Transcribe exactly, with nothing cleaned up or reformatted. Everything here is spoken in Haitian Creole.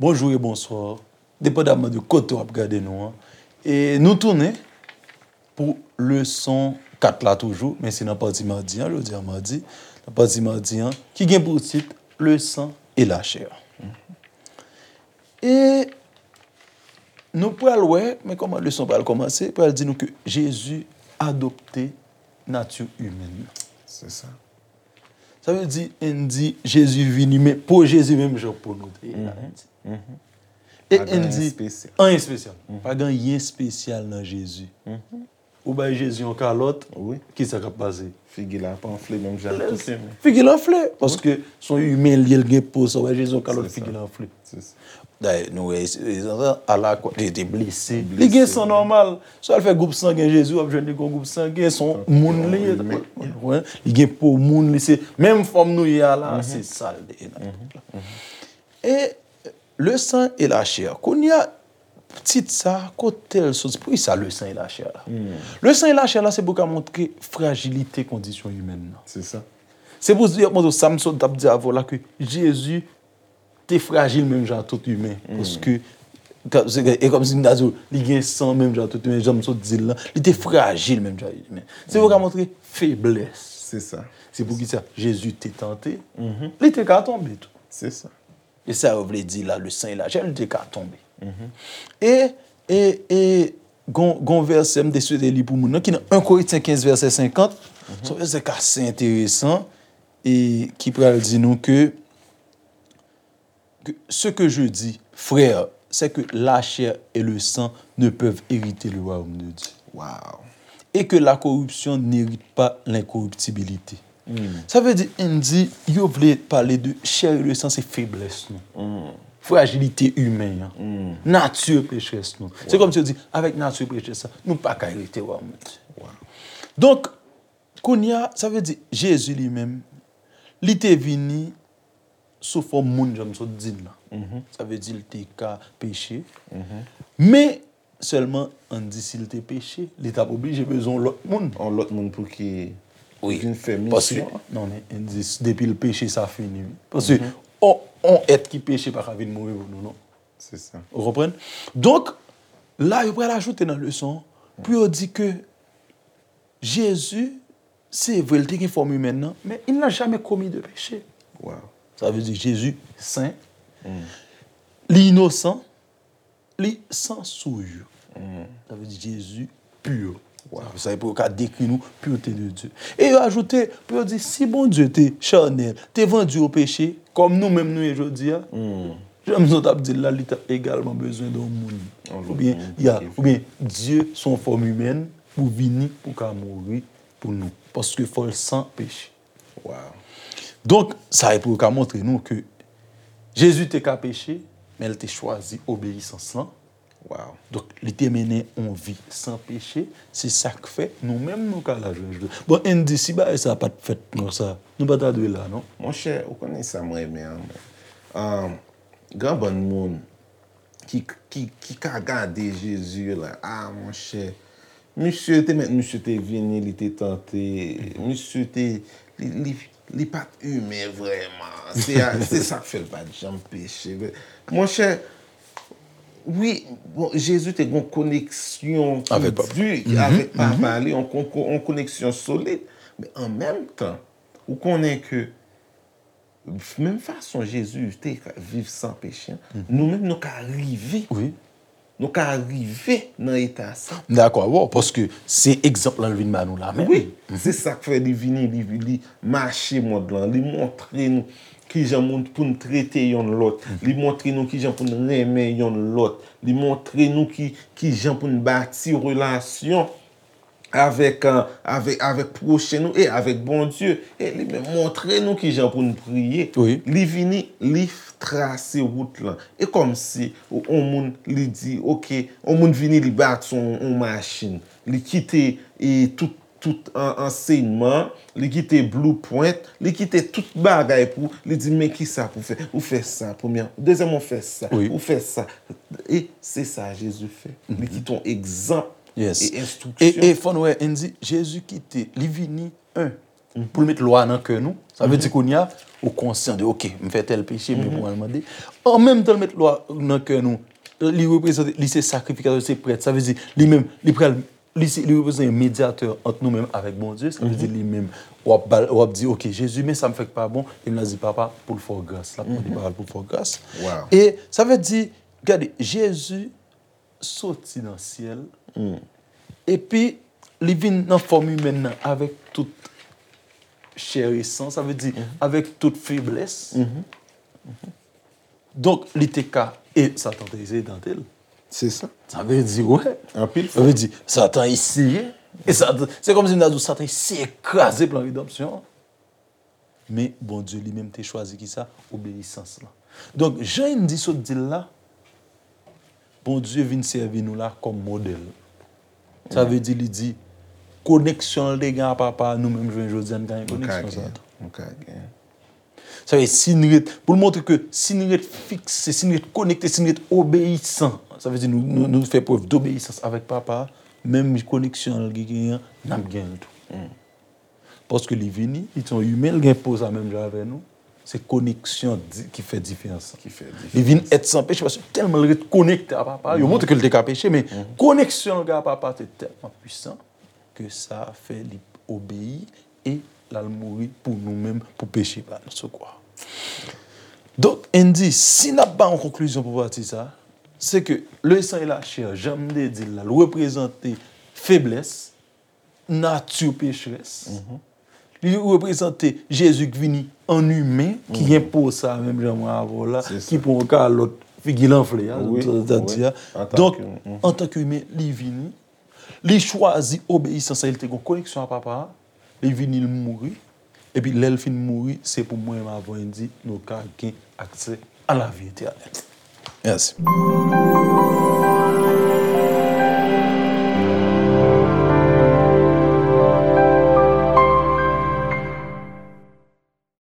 Bonjou e bonswa, depandaman de kote w ap gade nou an. E nou tounen pou leson kat la toujou, men se nan pati madi an, jodi a madi, nan pati madi an, ki gen pou tit Le sang et la chair. E nou pral wè, men kòman leson pral kòmanse, pral di nou ke Jezi adopte nati imèn nan. Se sa. Sa vle di, n di Jezi vini, men po Jezi menm jan po nou te ye la. E n di, anyen espesyal. Pa gen anyen espesyal nan Jezi. Ou bay Jezi yon kalòt, kisa k ap pase? Figi l ap anfle menm jan tout imen. Figi l anfle, paske se yon imen li ye, l gen po, sa w bay Jezi yon kalòt, figi l anfle. Dayè, nou wè, alakwa, li te blese. Li gen san nòmal. Si w al fè gwoup sangen Jezi, w ap jwenn li gen gwoup sangen, se yon moun li ye. Li gen po moun, li se menm fòm nou ye a la, se sa l te ye nan tout la. E Le sang et la chair. Kounye a, tit sa, kote l soti? Poukisa le sang et la chair la? Le sang et la chair la, se pou ka montre frajilite kondisyon imèn nan. Se sa. Se pou di, yo montre w sa m sot t ap di avè w la, ke Jezi te frajil menm jan ak tout imen. Paske, e kòmsi m ta di w, li gen san menm jan ak tout imen, jan m sot di l lan. Li te frajil menm jan ak imen. Se pou ka montre feblès. Se sa. Se poukisa Jezi te tante, li te ka tonbe tou. Se sa. E sa yo vle di la, le sang et la chair, li te ka tonbe. E, e, e, gon, gon vèsè m te swete li pou moun nan, ki nan en Korentyen kenz vèsè senkant. Se yon vèsè ki ase enteresan, e ki pral di nou ke, que ce que je dis, frères, c'est que la chair et le sang ne peuvent hériter le royaume de Dieu. Wow. Et que la corruption n'hérite pas l'incorruptibilité. Sa vle di, n di, yo vle pale de chè e le san, se feblès nou. Frajilite imen an. Nati pechès nou. Se kòmsi yo di, avèk nati pechès sa, nou pa ka erite wayòm Dye. Donk, kounye a, sa vle di, Jezi li menm, li te vini sou fòm moun, jan m sot di n lan. Sa vle di, l te ka peche. Men, sèlman, ann di si l te peche, li t ap oblije bezwen yon lòt moun. Yon lòt moun pou ki vin fè misyon an. Paske, non, men, ann di, depi l peche, sa fini, wi. Paske, yon, yon èt ki peche pa ka vin mouri pou nou, non. Se sa. Ou konprann? Donk, la, yo pral ajoute nan leson an, pou yo di ke Jezi, se vre, li te gen fòm imèn nan, men il n'a jamais commis de péché. Wow. Sa vle di Jezi sen, li inosan, li san souillure. Sa vle di Jezi pur. Wow. Sa, sa pou yo ka dekri nou pureté de Dieu. E yo ajoute, pou yo di, si Bondye te chanèl, te vandi o peche, kòm nou menm nou ye jodi a, jan m sot ap di l la, li t ap egalman bezwen de yon moun. Yon lòt moun pou ki fè. Oubyen, ya, oubyen Dye se yon fòm imèn pou vini, pou ka mouri pou nou. Paske fò l san peche. Wow. Donk, sa e pou yo ka montre nou ke Jezi te ka peche, men l te chwazi obeyisans lan. Wow. Donk, li te mennen yon vi san peche, se sa k fè nou menm nou ka la jodi a. Bon, ann di, si bagay sa pa t fèt konsa, nou pa ta dwe la, non? Monchè, ou konnen sa m renmen an, mwen. Ahn, gen bann moun ki, ki, ki ka gade Jezi la. Ah, monchè, misye te mèt, misye te vini, li te tante, misye te, li, li, li pa t imen vrèman. Se a, se sa k fè l pa t janm peche. Monchè, wi, bon, Jezi te gen yon koneksyon ki di avèk Papa li, yon kon-, kon-, yon koneksyon solid. Men an menm tan, ou konnen ke menm fason Jezi te ka viv san peche an, nou menm nou ka rive. Wi. Nou ka rive nan eta sa. M dakò avè w, paske se egzanp lan l vin ba nou la menm. Wi, se sa k fè li vini, li, li mache mond lan, li montre nou kijan moun pou n trete yonn lòt, li montre nou kijan pou n renmen yonn lòt, li montre nou ki, kijan pou n bati relasyon avèk, euh, avèk, avèk pwochen nou e avèk Bondye. E li menm montre nou kijan pou n priye. Wi. Li vini, li f-, trase wout lan. E kòmsi, yon moun, li di, oke, yon moun vini, li bati yon, yon machin. Li kite, e, tout, tout an-, ansèyman, li kite blueprint, li kite tout bagay pou, li di, men kisa pou fè? Ou fè sa, premyè, dezyèm, ou fè sa, ou fè sa. E se sa Jezi fè. Li kite yon egzanp. Yes. E enstriksyon. E fò nou wè, Andy, Jezi kite, li vini, en, pou l met lwa nan kè nou. Sa vle di kounye a, ou konsyan de, oke, m fè tèl peche, men pou al mande. An menm tan l met lwa nan kè nou, li reprezante, li se sakrifikatè, se prèt. Sa vle di, li menm, li pral, li se, li reprezante yon medyatè ant nou menm avèk Bondye. Sa vle di, li menm, w ap, ba l- w ap di, oke, Jezi, men sa m fè k pa bon, e m la di, papa, pou l fè w gras. L ap mande papa l pou l fè w gras. Wow. E sa vle di, gade, Jezi soti nan syèl, epi li vin nan fòm imèn nan avèk tout chè e san, sa vle di avèk tout feblès. Donk, li te ka, e Satan te eseye tante l. Se sa. Sa vle di, wè. Anpil Sa vle di, Satan eseye. E Satan, se kòmsi m ta di w, Satan eseye kraze plan redanmsyon an. Men Bondye li menm te chwazi ki sa? Obeyisans lan. Donk, jan Andy sot di l la, Bondye vin sèvi nou la kòm modèl. Sa vle di, li di, koneksyon l te gen a papa, nou menm jounen jodi a, n ka gen koneksyon sa tou. Nou ka gen. Sa vle di, si n ret, pou l montre ke si n ret fikse, si n ret konekte, si n ret obeyisan, sa vle di, nou, nou, nou fè prèv dobeyisans avèk papa, menm koneksyon l genyen an, n ap gen l tou. Paske li vini, li se yon imen, li gen po sa menm jan avè nou. Se koneksyon di- ki fè diferans. Ki fè diferans. Li vin èt san peche paske tèlman li ret konekte a papa, yo montre ke li te ka peche, men koneksyon li a papa te tèlman pwisan ke sa fè li obeyi e l al mouri pou nou menm, pou peche pa nou sou kwa. Donk, Andy, si n ap bay yon konklizyon pou pati sa, se ke le sang et la chair, jan m te di l la, l reprezante feblès, nati pecherès. Li reprezante Jezi ki vini an imen, ki gen po sa, menm jan mwen avè w la, Se sa. Ki pran yon kalòt, figi l anfle a, Wi, sa, sa di a. wi. Antanke, Donk, mhm. Antanke imen, li vini, li chwazi obeyisans, li te gen koneksyon a papa a, li vini, li mouri, epi lè l fin mouri, se pou mwen, m avè w, Andy, nou ka gen aksè a lavi etènèl. Yes.